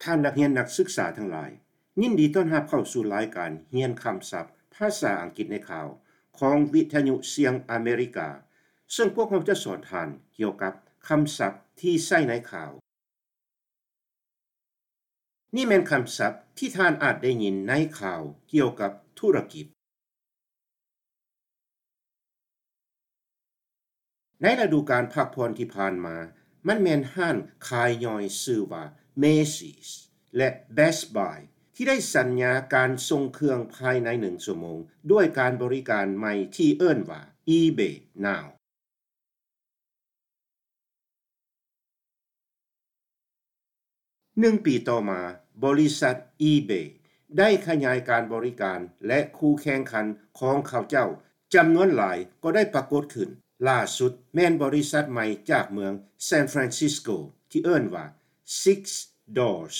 ທ່ານນັກຮຽນນັກສຶກສາທັງຫຼາຍ, ຍິນດີຕ້ອນຮັບເຂົ້າສູ່ລາຍການຮຽນຄຳສັບພາສາອັງກິດໃນຂ່າວ ຂອງວິທະຍຸສຽງອາເມລິກາ, ເຊິ່ງພວກເຮົາຈະສອນທ່ານກ່ຽວກັບຄຳສັບທີ່ໃຊ້ໃນຂ່າວ. ນີ້ແມ່ນຄຳສັບທີ່ທ່ານອາດໄດ້ຍິນໃນຂ່າວກ່ຽວກັບທຸລະກິດ. ໃນລະດູການພັກຜ່ອນທີ່ຜ່ານມາ, ມັນແມ່ນຮ້ານຂາຍຍ່ອຍຊື່ວ່າ Macy's ແລະ Best Buy ທີ່ໄດ້ສັນຍາການສົ່ງເຄື່ອງພາຍໃນໜຶ່ງຊົ່ວໂມງ ດ້ວຍການບໍລິການໃໝ່ທີ່ເອີ້ນວ່າ eBay Now. ໜຶ່ງປີຕໍ່ມາ, ບໍລິສັດ eBay ໄດ້ຂະຫຍາຍການບໍລິການ ແລະ ຄູ່ແຂ່ງຂັນຂອງເຂົາເຈົ້າຈຳນວນຫຼາຍກໍໄດ້ປາກົດຂຶ້ນ. ຫຼ້າສຸດແມ່ນບໍລິສັດໃໝ່ຈາກເມືອງ San Francisco ທີ່ເອີ້ນວ່າ Six Doors.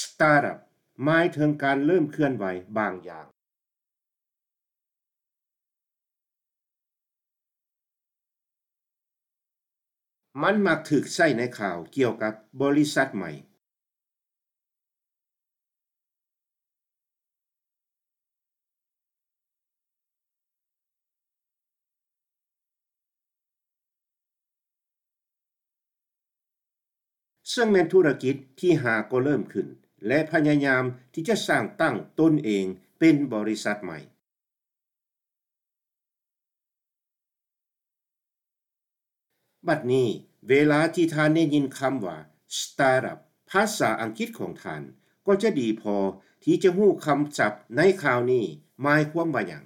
Startup ໝາຍເຖິງການເລີ່ມເຄື່ອນໄຫວບາງຢ່າງ. ມັນມັກຖືກໃຊ້ໃນຂ່າວກ່ຽວກັບບໍລິສັດໃໝ່, ເຊິ່ງແມ່ນທຸລະກິດທີ່ຫາກໍເລີ່ມຂຶ້ນ ແລະ ພະຍາຍາມທີ່ຈະສ້າງຕັ້ງຕົນເອງເປັນບໍລິສັດໃໝ່. ບັດນີ້, ເວລາທີ່ທ່ານໄດ້ຍິນຄຳວ່າ Startup ພາສາອັງກິດຂອງທ່ານ ກໍຈະດີພໍທີ່ຈະຮູ້ຄຳສັບໃນຂ່າວນີ້ໝາຍຄວາມວ່າຫຍັງ.